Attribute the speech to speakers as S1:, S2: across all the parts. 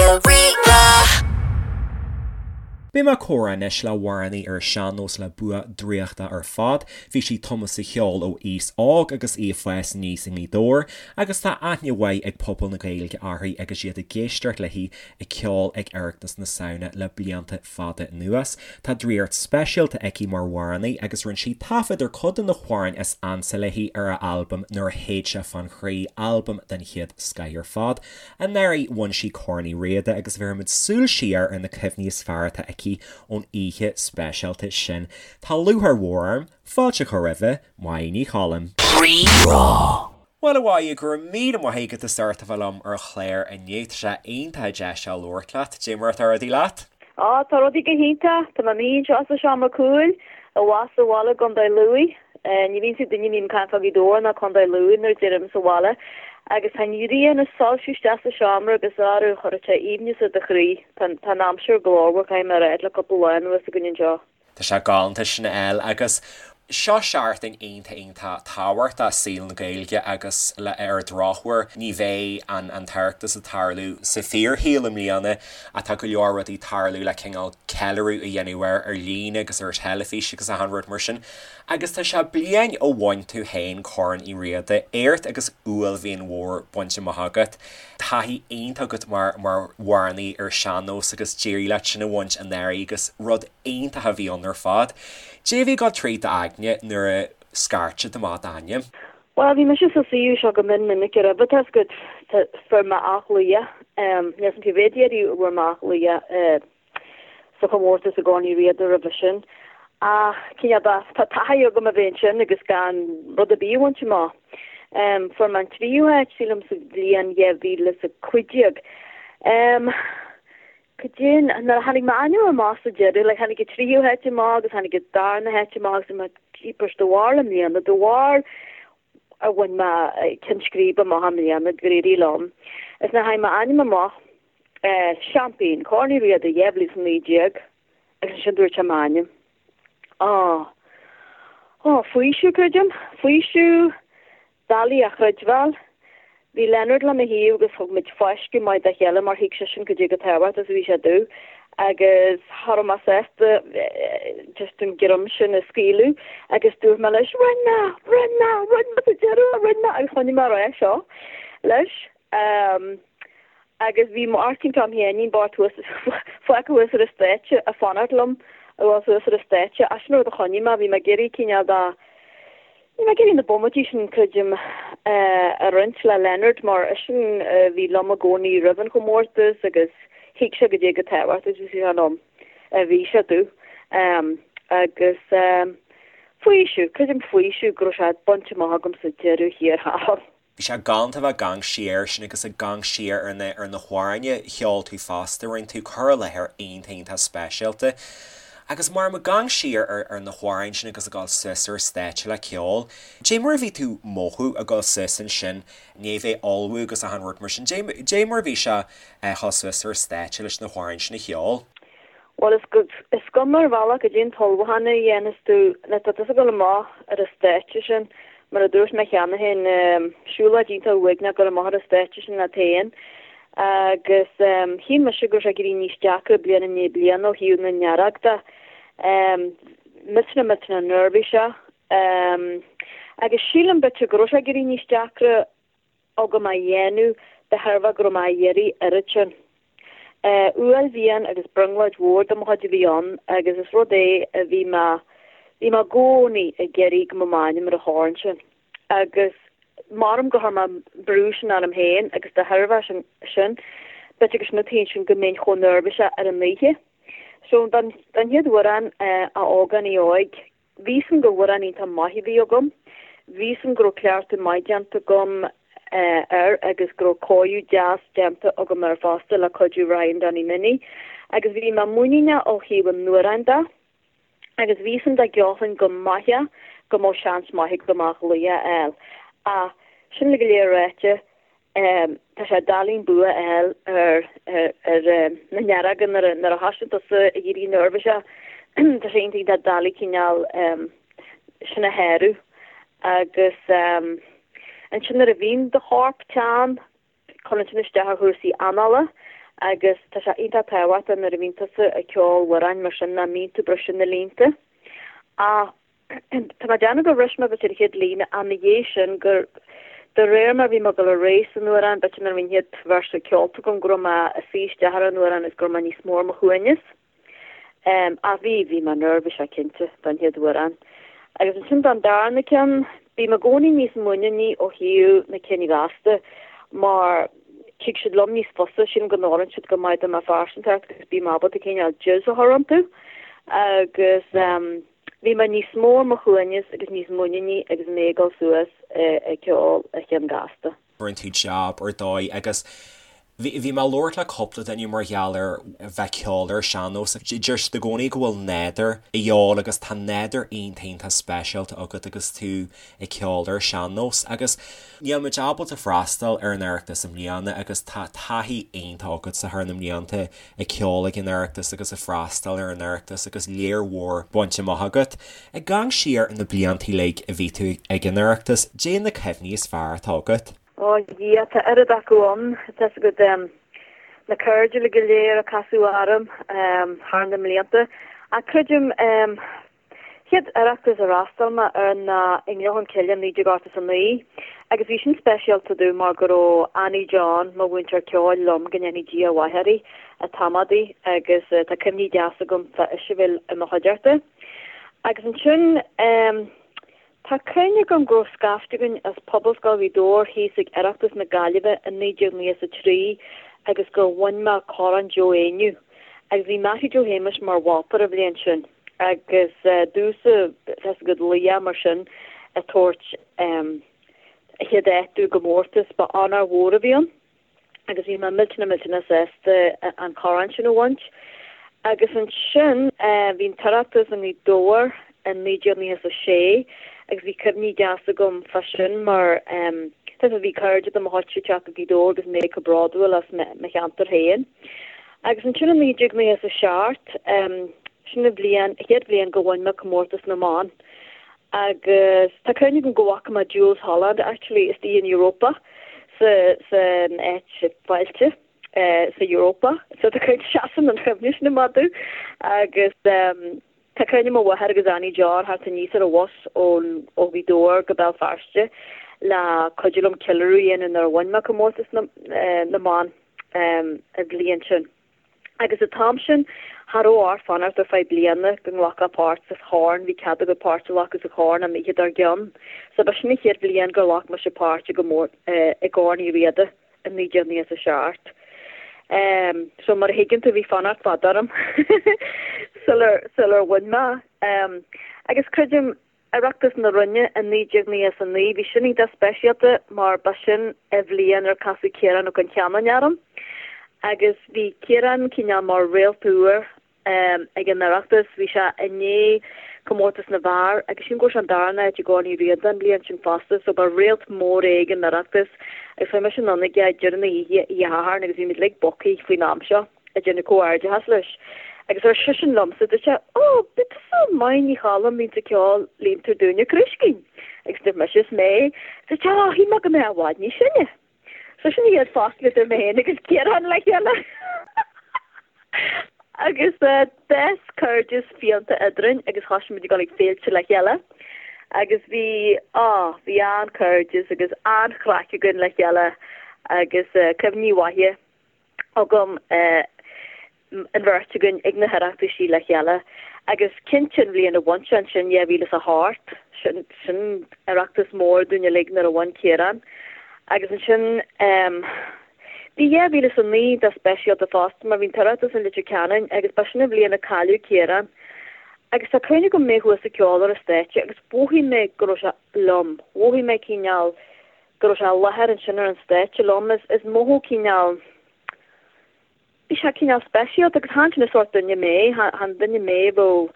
S1: Raidió Rí-Rá.
S2: Beidh mé ag comhrá anois le hamhránaí ar an sean-nós le bua draíochta ar fad. Bhí sí tumtha sa cheol ó aois óg agus í ag fás aníos i nGaoth Dobhair agus tá aithne mhaith ag pobal na Gaeilge uirthi agus iad ag éisteacht léi ag ceol ag Oireachtas na Samhna le blianta fada anuas. Tá draíocht speisialta aici mar amhránaí agus rinne sí taifead ar cuid de na hamhráin is ansa léi ar a albam Nuair a Théid Sé Fán Chroí, albam den chéad scoith ar fad. Anuraidh bhain sí Corn Uí Riada agus bhéarfaimid súil siar ar na cuimhní is fearr atá aici ón oíche speisialta sin. Tá lúcháir mhór orm fáilte a chur roimhe, Máire Ní Choilm.
S1: Rí-Rá.
S2: Bhuel, a Mháire, go raibh míle maith agat as ucht a bheith liom ar an chlár inniu. Tá sé iontach deas a labhairt leat. Dé mar atá rudaí leat?
S3: Á, tá rudaí go hiontach. Tá mé i mo shuí anseo sa seomra cúil, abhus sa bhaile i gContae Lú. Ní bhíonn siad duine a bhíonn ag caint fá Ghaoth Dobhair ná Contae Lú nuair a deirim sa bhaile. Agus tá an ghrian ag soilsiú isteach sa seomra agus arú, chuirfeadh sé aoibhneas ar do chroí. Tá an aimsir glórmhar, caithfidh mé a rá, le cúpla lá anuas againn anseo.
S2: Tá sé galánta sin a fháil agus seo seachtain iontach iontach tábhachtach i saol na Gaeilge agus le ar an drochuair ní bheidh an an tOireachtas ag tarlú sa fíorshaol i mbliana ach tá go leor rudaí ag tarlú le cineál ceiliúradh a dhéanamh air ar líne agus ar teilifís agus achan rud mar sin agus tá sé bliain ó bhain tú féin Corn Uí Riada, éacht agus uaillmhian mhór bainte amach agat. Taithí iontach agat mar mar amhránaí ar sean-nós agus d'éirigh leat sin a bhaint anuraidh agus rud iontach a bhí ann ar fad. Dé a bhí ag dul tríd d'aigne nuair a scairt siad amach d'ainm?
S3: Bhuel, bhí mise sa suíomh seo go mion minic roimhe, tá 'fhios agat, fuair mé athghlaoch, níl 'fhios a'm cé mhéad iarraidh a bhfuair mé athghlaoch sa chomórtas i gCorn Uí Riada roimhe sin. Ach cineál de, tá taithí agam a bheith ansin agus gan rud ar bith a bhaint amach. Fuair mé an tríú háit, sílim, sa bhliain 2015. Cad é, nuair a tháinig m'ainm amach sa deireadh, like tháinig an tríú háit amach agus tháinig an darna háit amach agus mé jeepers de bharr i mbliana, de bharr a bhain mé ceann scríbe amach i mbliana, gur éirigh liom. Is nuair a tháinig m'ainm amach, eh, Seaimpín, Corn Uí Riada 2019 agus ansin dúirt sé m'ainm. Á, á, faoiseamh, creidim, faoiseamh, doiligh a chreidbheáil. Bhí Leonard le mo thaobh agus thug muid fáisceadh maith dá chéile mar thuig seisean cad é chomh tábhachtach is a bhí sé domh agus cha raibh mé sásta just an greim sin a scaoileadh agus dúirt mé leis rinne mé, rinne mé, rinne mé sa deireadh, rinne mé agus choinnigh mé ag rá seo leis. Agus bhí Máirtín Tom Sheáinín bocht thuas, fágtha thuas ar an stáitse ag fanacht liom a dhul suas ar an stáitse. Ach sin an rud a choinnigh mé, bhí mé ag iarraidh cineál de, bhí mé ag iarraidh na bomaití sin, creidim, a roinnt le Leonard mar eisean a bhí liom i gcónaí roimh an chomórtas agus thuig sé cad é chomh tábhachtach is a bhí sé liom, a bhí sé domh. Agus faoiseamh, creidim faoiseamh go raibh sé bainte amach agam sa deireadh thiar thall.
S2: Bhí sé galánta a bheith ag amharc siar sin agus ag amharc siar ar na ar na hamhráin a cheol tú fosta, rinne tú cur i láthair iontach iontach speisialta. Agus mar ag amharc siar ar ar na hamhráin sin agus ag dul suas ar stáitse le ceol, dé mar a bhí tú mothú ag dul suas ansin, ní bheith ullmhú agus achan rud mar sin, dé dé mar a bhí sé a dhul suas ar stáitse leis na hamhráin sin a cheol?
S3: Bhuel, is go, is cuma ar bhealach cad é an t-ullmhúchán a dhéanas tú, nuair atá tusa ag dul amach ar an stáitse sin, mar a dúirt mé cheana féin, siúlóid iontach uaigneach dul amach ar an stáitse sin leat féin. Agus shíl mise go raibh sé ag éirí níos deacra bliain i ndiaidh bliana ó thaobh na ndearg de. Millteanach millteanach neirbhíseach. Agus sílim b'fhéidir go raibh sé ag éirí níos deacra agam a dhéanamh de thairbhe go raibh mé á iarraidh oiread sin. Uaillmhian agus brionglóid mhór de mo chuid a bhí ann agus is rud é a bhí mé, bhí mé i gcónaí ag iarraidh go mbeadh m'ainm ar an chorn sin. Agus maram gur chuir mé an brú sin orm féin agus de thairbhe sin, b'fhéidir gur sin an taobh sin go mbeinn chomh neirbhíseach ar an oíche. So don chéad amhrán, A Ógánaigh Óig, Bhí 'fhios a'm gur amhrán iontach maith a bhí agam. Bhí 'fhios a'm go raibh cleachtadh maith déanta agam air agus go raibh cóiriú deas déanta agam air fosta le cuidiú Ryan Donny Minnie. Agus bhí mé muiníneach ó thaobh an amhráin de agus bhí 'fhios a'm dá gceolfainn go maith é go mbeadh seans maith agam athghlaoch a fháil. Ach sin uilig go léir ráite, Tá sé doiligh an bua a fháil ar na nearaga nuair a thosaíonn tusa ag éirí neirbhíseach. Tá sé iontach iontach doiligh cineál sin a shárú. Agus ansin nuair a bhíonn do chorp teann, cuireann sin isteach ar chúrsaí anála. Agus tá sé iontach tábhachtach nuair a bhíonn tusa ag ceol amhráin mar sin nach mbíonn tú ag briseadh na línte. Ach tá mé ag déanamh gur bhris mé b'fhéidir an chéad líne ach ina dhiaidh sin gur de réir mar bhí mé ag dul ar aghaidh san amhrán b'fhéidir nuair a bhí an chéad véarsa ceolta agam go raibh mé ag suí isteach ar an amhrán agus go raibh mé níos mó ar mo shuaimhneas. Ach bhí, bhí mé neirbhíseach cinnte don chéad amhrán. Agus ansin don darna ceann, bím i gcónaí níos muiníní ó thaobh na cinn ghasta mar tig siad liom níos fusa, sílim go n-oireann siad go maith do mo phearsantacht agus bím ábalta cineál jizz a chur iontu. Agus bhí mé níos mó ar mo shuaimhneas agus níos muiníní agus mé ag dul suas ag ceol an chinn gasta.
S2: Rinne tú jab ar dóigh agus bhí bhí mé ag labhairt le cúpla duine mar gheall ar bheith ag ceol ar an sean-nós. Deir siad i gcónaí go bhfuil nádúr a dhíobháil agus tá nádúr iontach iontach speisialta agat agus tú ag ceol ar an sean-nós agus níl muid ábalta freastal ar an Oireachtas i mbliana agus tá taithí iontach agatsa thar na mblianta ag ceol ag an Oireachtas agus ag freastal ar an Oireachtas agus lear mhór bainte amach agat. Ag amharc siar ar na blianta uilig a bhí tú ag an Oireachtas, caidé na cuimhní is fearr atá agat?
S3: Ó a Dhia, tá oiread acu ann. Tá 'fhios agat, na cairde uilig go léir a casadh orm thar na mblianta. Ach creidim, chéad Oireachtas ar fhreastail mé air ná i nGleann Cholm Cille 1989 agus bhí sin speisialta domh mar go raibh Annie John, mo mhúinteoir ceoil, liom, go ndéanfaidh Dia a mhaith uirthi, ag tamadaí agus tá cuimhní deasa agam fá ise a bheith i mo chuideachta. Agus ansin tá cuimhne agam go raibh scaifte againn as Pobalscoil Ghaoth Dobhair thíos ag Oireachtas na Gaillimhe i 1993 agus gur bhain mé Corn Joe Éinniú agus bhí Mattie Joe Shéamuis mar mholtóir an bhliain sin. Agus domhsa, tá 'fhios agat, laoch mar sin ag tabhairt an chéad áit domh i gcomórtas, ba onóir mhór a bhí ann agus bhí mé millteanach millteanach sásta an corn sin a bhaint. Agus ansin bhí an tOireachtas i nGaoth Dobhair in 1996 agus bhí cuimhní deasa agam fá sin mar tá 'fhios agat bhí cairde de mo chuidse ag teacht go Gaoth Dobhair agus mé chomh bródúil as mo cheantar féin. Agus ansin i 1997, sin an bhliain, chéad bhliain go bhain mé comórtas na mban. Agus tá cuimhne agam go bhfaca mé Jools Holland actually istigh in Europa sa, san áit fáilte sa Europa. So tá cuimhne, seasann an chuimhne sin amach domh. Agus tá cuimhne mo mháthair agus Annie John theacht aníos ar an bhus ón, ó Ghaoth Dobhair go Béal Feirste le cuidiú liom ceiliúradh a dhéanamh nuair a bhain mé comórtas na, na mban. an bhliain sin. Agus an t-am sin, cha raibh ort fanacht ar feadh bliana go nglacfá páirt sa chorn, bhí cead agat páirt a ghlacadh sa chorn an oíche dár gcionn. So ba sin an chéad bhliain gur ghlac mise páirt i i gCorn Uí Riada i 1997. So mar a thuigeann tú, bhí fanacht fada orm sular sular bhain mé. Agus creidim, Oireachtas na Rinne i 1999, bhí sin iontach speisialta mar ba sin an bhliain ar casadh Ciarán Ó Con Cheanainn orm agus bhí Ciarán cineál mar réalt úr ag an Oireachtas, bhí sé i ndiaidh comórtas na bhfear agus sílim go raibh sé an darna háit i gCorn Uí Riada an bhliain sin fosta so ba réalt mór é ag an Oireachtas agus chuaigh mise anonn aige ag deireadh na hoíche, oíche Shathairn agus bhí muid uilig bogtha faoin am seo. ag déanamh comhghairdeachas leis. Agus ar seisean liomsa, dúirt sé, Ó, ab í tusa Máire Ní Choilm a bhíonns ag ceol Líontar Dúinne Crúiscín. Agus dúirt mise, Is mé. Dúirt sé, Ó, shíl mé go mbeifeá i bhfad níos sine. So sin an chéad focal idir mé féin agus Ciarán le chéile. Agus d'fhás cairdeas fiánta eadrainn agus thosaigh muid ag dul ag féilte le chéile. Agus bhí, á, bhí an-chairdeas agus an-chraic againn le chéile agus cuimhní mhaithe. agam an bheirt againn ag na hOireachtaisí le chéile agus cinnte an bhliain a bhain sé ansin, 2008, sin, sin Oireachtas mór dúinn uilig nuair a bhain Ciarán agus ansin bhí 2009 iontach speisialta fosta mar bhí an tOireachtas i Leitir Ceanainn agus ba sin an bhliain a cailleadh Ciarán agus tá cuimhne agam mé thuas ag ceol ar an stáitse agus mhothaigh mé go raibh sé liom, mhothaigh mé cineál go raibh sé i láthair ansin ar an stáitse liom. Is mothú cineál, bhí sé cineál speisialta agus chan sin an sórt duine mé, chan duine mé a bheadh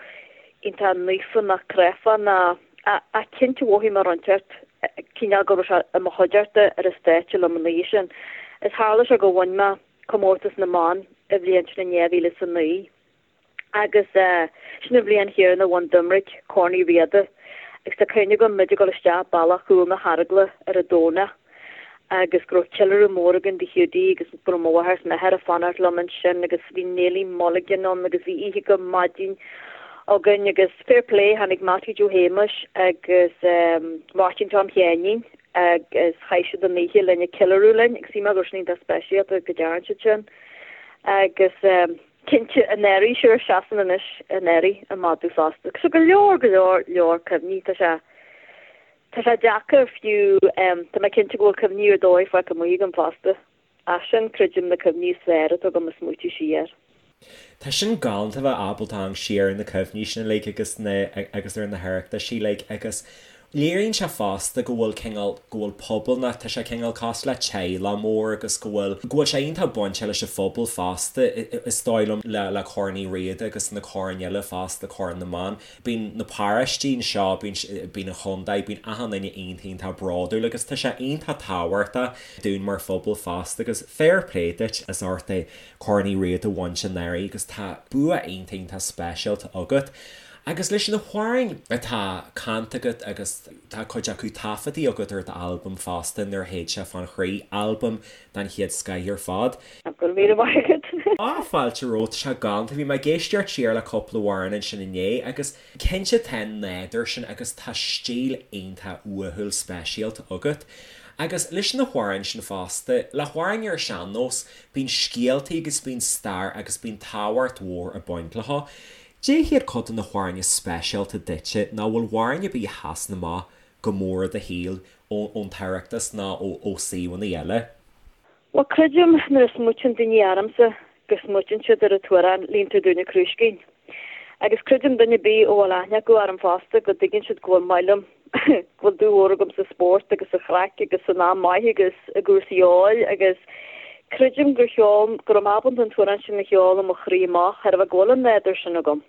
S3: iontach naofa ná cráifeach ná, ach cinnte mhothaigh mé rud inteacht cineál go raibh sé i mo chuideachta ar an stáitse liom an oíche sin. Is tharla sé go bhain mé comórtas na mban an bhliain sin in 2009. Agus sin an bhliain chéanna a bhain Doimnic Corn Uí Riada agus tá cuimhne agam muid ag dul isteach bealach chúl na hArgla ar an Domhnach. Agus go raibh ceiliúradh mór againn do Hiúdaí agus go raibh mo mháthair is m'athair ag fanacht liom ansin agus bhí Neilí Mulligan ann agus bhí oíche go maidin againn agus fair play tháinig Mattie Joe Shéamais agus Máirtín Tom Sheáinín agus chaith siad an oíche linn ag ceiliúradh linn agus shíl mé go raibh sin iontach speisialta go dtearn siad sin agus cinnte an earraigh sure seasann anois an earraigh i madadh fosta. So go leor go leor leor cuimhní tá sé Tá sé deacair fiú, tá mé cinnte go bhfuil cuimhní ar dóigh fágtha amuigh agam fosta. Ach sin, creidim, na cuimhní is fearr atá agam ag smaoitiú siar.
S2: Tá sin galánta bheith ábalta amharc siar ar na cuimhní sin uilig agus na agus ar na hOireachtaisí uilig agus léiríonn sé fosta go bhfuil cineál, go bhfuil pobal ná tá sé cineál cosúil le teaghlach mór agus go bhfuil, go bhfuil sé iontach bainte leis an phobal fosta is dóigh liom le le Corn Uí Riada agus na coirn eile fosta, Corn na mBan. Bíonn na paróistí anseo, bíonn, bíonn an chontae, bíonn achan duine iontach, iontach bródúil agus tá sé iontach tábhachtach dúinn mar phobal fosta agus fair play duit as ucht é Corn Uí Riada a bhaint anuraidh agus tá bua iontach, iontach speisialta agat. Agus leis na hamhráin atá canta agat agus tá cuid acu taifeadtaí agat ar d'albam fosta, Nuair a Théid Sé Fán Chroí, albam den chéad scoith ar fad.
S3: Go raibh míle maith agat.
S2: Á, fáilte romhat, tá sé galánta. Bhí mé ag éisteacht siar le cúpla amhrán ansin inné agus cinnte tá an nádúr sin agus tá stíl iontach uathúil speisialta agat. Agus leis na hamhráin sin fosta, le hamhráin ar sean-nós, bíonn scéaltaí agus bíonn stair agus bíonn tábhacht mhór ag baint leo. Cad iad cuid de na hamhráin is speisialta duitse nó bhfuil amhrán ar bith a sheasann amach go mór i do shaol ón tOireachtas nó ó suíomhanna eile?
S3: Bhuel, creidim nuair a smaoitíonn daoine ormsa go smaoitíonn siad ar an t-amhrán Líontar Dúinn an Crúiscín. Agus creidim duine ar bith a bhfuil aithne acu orm fosta go dtuigeann siad go bhfuil maith liom, go bhfuil dúil mhór agam sa spórt agus sa chraic agus san am maith agus i gcúrsaí óil agus creidim gur cheol, go raibh mé ábalta an t-amhrán sin a cheol ó mo chroí amach, thairbhe go bhfuil an nádúr sin agam.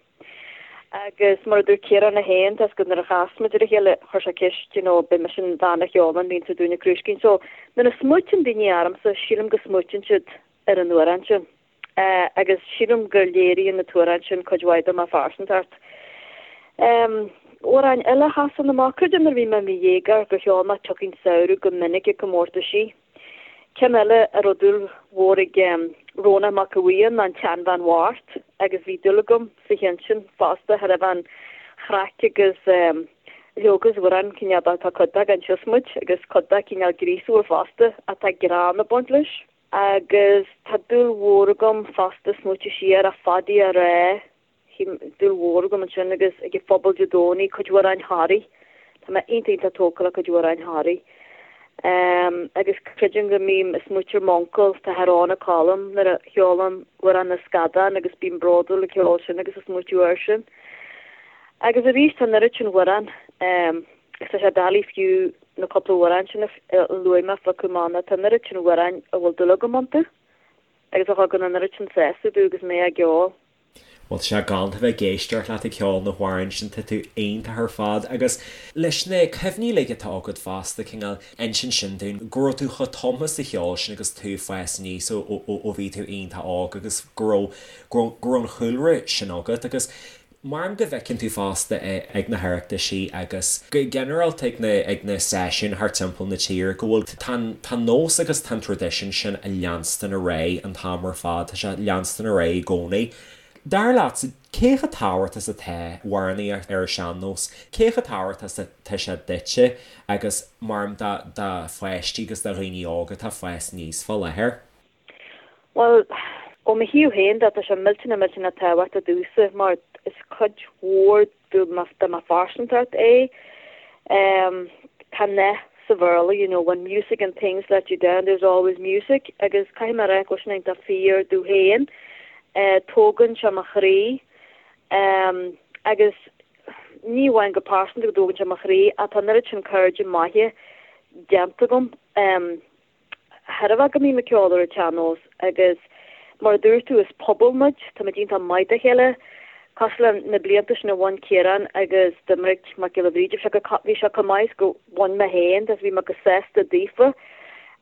S3: Agus mar a dúirt Ciarán é féin, tá 's agat nuair a chas muid ar a chéile, chuir sé ceist, you know, b'é mise an bhean a cheolann Líontar Dúinn an Crúiscín. So, nuair a smaoitíonn daoine ormsa, sílim go smaoitíonn siad ar an amhrán sin. Agus sílim go léiríonn an t-amhrán sin cuid mhaith de mo phearsantacht. Amhráin eile a sheasann amach, creidim nuair a bhí mé i mo dhéagóir gur cheol mé Tiocfaidh an Samhradh go minic ag comórtaisí. Ceann eile a raibh dúil mhór ag Rónán Mac Aodha Bhuí ann ná an tSeanbhean Bhocht agus bhí dúil agam sa cheann sin fosta, thairbhe an chraic agus leoga is amhrán cineál de tá cuid de gan siosmaid agus cuid de cineál gríosúil fosta ach tá greann ag baint leis. Agus tá dúil mhór agam fosta smaoitiú siar a Phaidí a rá Dúil mhór agam ansin agus ag an phobal Dé Domhnaigh, cuid d'amhráin Thoraí. Tá mé iontach iontach tógtha le cuid d'amhráin Thoraí. Agus creidim go mbím ag smaoitiú ar m'uncail, tá Rónán Colm, nuair a cheolaim Amhrán na Scadán agus bím bródúil ag ceol sin agus ag smaoitiú air sin. Agus arís tá an oiread sin amhrán agus tá sé doiligh fiú na cúpla amhrán sin a luaigh mé a phiocadh amach nó tá an oiread sin amhráin a bhfuil dúil agam iontu agus a thugann an oiread sin sásamh domh agus mé á gceol.
S2: Bhuel, tá sé galánta bheith ag éisteacht leat ag ceol na hamhráin sin, tá tú iontach ar fad. Agus leis na cuimhní uilig atá agat fosta, cineál, insíonn sin dúinn go raibh tú chomh tumtha sa cheol sin agus tú ag fás aníos ó ó bhí tú iontach óg agus go raibh, go raibh, go raibh an chúlra sin agat. Agus mar go bhfeiceann tú fosta ag na hOireachtaisí agus go ginearálta ag na, ag na seisiúin thart timpeall na tíre go bhfuil, tá an, tá an nós agus tá an traidisiún sin ag leanstan ar aghaidh an t-am ar fad, tá sé ag leanstan ar aghaidh i gcónaí. Dar leatsa, cé chomh tábhachtach is atá amhránaíocht ar an sean-nós, cé chomh tábhachtach is atá sé duitse agus mar do, do pháistí agus do dhaoine óga atá ag fás aníos fá láthair?
S3: Bhuel, ó mo thaobh féin de, tá sé millteanach millteanach tábhachtach domhsa mar is cuid mhór de mo phearsantacht é. Tá nath sa Bhéarla, you know, when music and things let you down, there's always music agus caithfidh mé a rá go bhfuil sin iontach fíor domh féin. Tógann sé mo chroí agus ní amháin go pearsanta go dtógann sé mo chroí ach tá an oiread sin cairde maithe déanta agam. Thairbhe go mbím ag ceol ar an tsean-nós agus mar a dúirt tú is pobal muid, táimid iontach maith dá chéile. Cosúil le na blianta sin a bhain Ciarán agus Doiminic Mac Giolla Bhríde, bhí sé go, bhí sé chomh maith is go bhain mé féin agus bhí mé go sásta daofa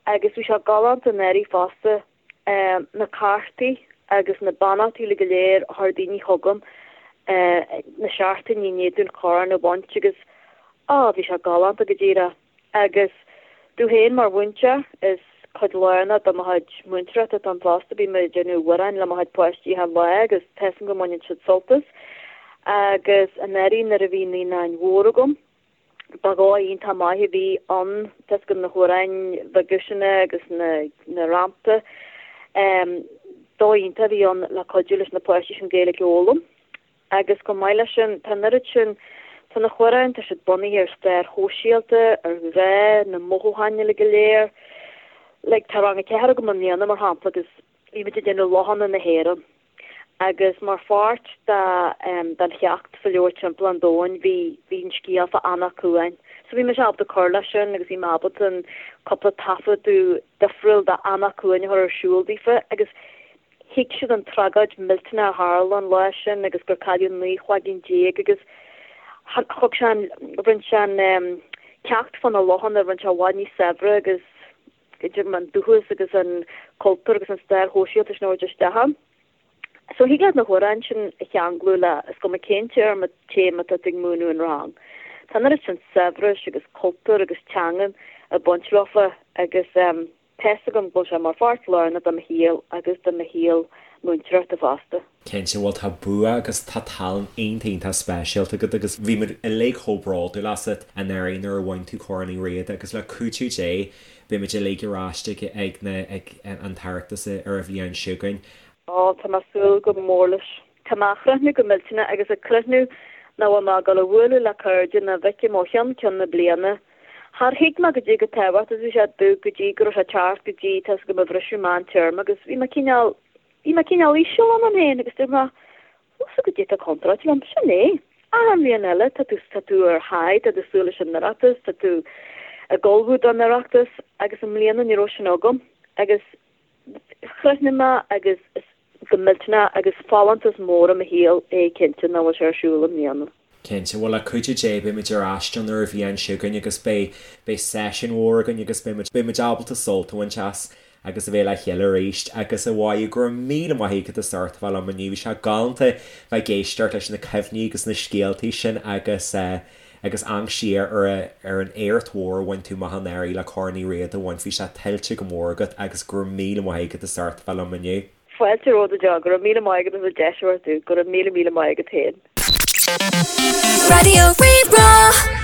S3: agus bhí sé galánta anuraidh fosta na cártaí agus na beannachtaí uilig go léir a chuir daoine chugam na seachtainí i ndiaidh dúinn corn a bhaint agus á bhí sé galánta go díreach. Agus. Domh féin mar mhúinteoir, is cuid lárnach de mo chuid múinteoireachta atá ann fosta. Bím ag déanamh amhráin le mo chuid páistí achan lá agus tá 'fhios a'm go mbaineann siad sult as. Agus anuraidh nuair a bhí naíonáin mhór agam, ba dhóigh iontach maith a bhí ann, tá 'fhios agat na hamhráin bheaga sin agus na rannta. Dóigh iontach a bhí ann le cuidiú leis na páistí sin Gaeilge a fhoghlaim. Agus chomh maith leis sin, tá an oiread sin, tá na hamhráin, tá siad bunaithe ar stair shóisialta, ar ghrá, na mothúcháin uilig go léir. Like, tá rang a ceathair agam i mbliana, mar shampla, agus bhí muid ag déanamh lochanna na hÉireann. Agus mar pháirt de, den cheacht sa leabhar Timpeall an Domhain, bhí, bhí an scéal fá Eanach Cuain. So bhí mise ábalta cur leis sin agus bhí mé ábalta an cúpla taifeadadh difriúil de Eanach Cuain a chur ar siúl daofa agus Thuig siad an tragóid millteanach a tharla an lá sin agus gur cailleadh 19 chloigeann agus thug sé an, rinne sé an ceacht fá na lochanna, rinne sé i bhfad níos saibhre agus idir an dúchas agus an cultúr agus an stair shóisialta sin a thabhairt isteach ann. So thig leat na hamhráin sin a cheanglú le, is cuma cén téarma, téama atá tú ag múineadh in rang. Tá an oiread sin saibhris agus cultúr agus teangan ag baint leofa agus. Tá 'fhios agam go bhfuil sé mar pháirt lárnach de mo shaol agus de mo shaol múinteoireachta fosta.
S2: Cinnte, bhuel tá bua agus tá tallann iontach iontach speisialta agat agus bhí muid uilig chomh bródúil asat anuraidh nuair a bhain tú Corn Uí Riada agus le cuidiú Dé beidh muid uilig ar ais ag ag na ag an tOireachtas ar an bhliain seo chugainn.
S3: Ó, tá mé ag súil go mór leis. Tá mé ag críochnú go millteanach agus ag críochnú nach bhfuil mé ag dul a bhualadh le cairde ná bhfeicim ó cheann ceann na bliana. Char thuig mé goidé chomh tábhachtach is a bhí sé domh go dtí go raibh sé ag teacht go dtí tá 'fhios agat mo bhriseadh meán téarma agus bhí mé cineál, bhí mé cineál íseal ionam féin agus dúirt mé, bhfuil 'fhios agat goidé atá contráilte liom, sin é. Achan bhliain eile tá tú, tá tú ar high, tá tú ag súil leis an Oireachtas, tá tú ag ullmhú don Oireachtas agus i mbliana ní raibh sin agam agus chríochnaigh mé agus is go millteanach agus folúntas mór i mo shaol é cinnte nach bhfuil sé ar siúl i mbliana.
S2: Cinnte, bhuel le cuidiú Dé beidh muid ar ais ann ar an bhliain seo chugainn agus beidh, beidh seisiún mhór againn agus beidh muid, beidh muid ábalta sult a bhaint as agus a bheith le chéile arís agus a Mháire go raibh míle maith agat as ucht a bheith liom inniu, bhí sé galánta bheith ag éisteacht leis na cuimhní agus na scéaltaí sin agus eh agus amharc siar ar ar an éacht mhór a bhain tú amach anuraidh le Corn Uí Riada a bhaint, bhí sé tuillte go mór agat agus go raibh míle maith agat as ucht a bheith liom inniu.
S3: Fáilte romhat go deo, go raibh míle maith agat as an deis a thabhairt domh, go raibh míle míle maith agat féin.
S1: Raidió Rí-Rá.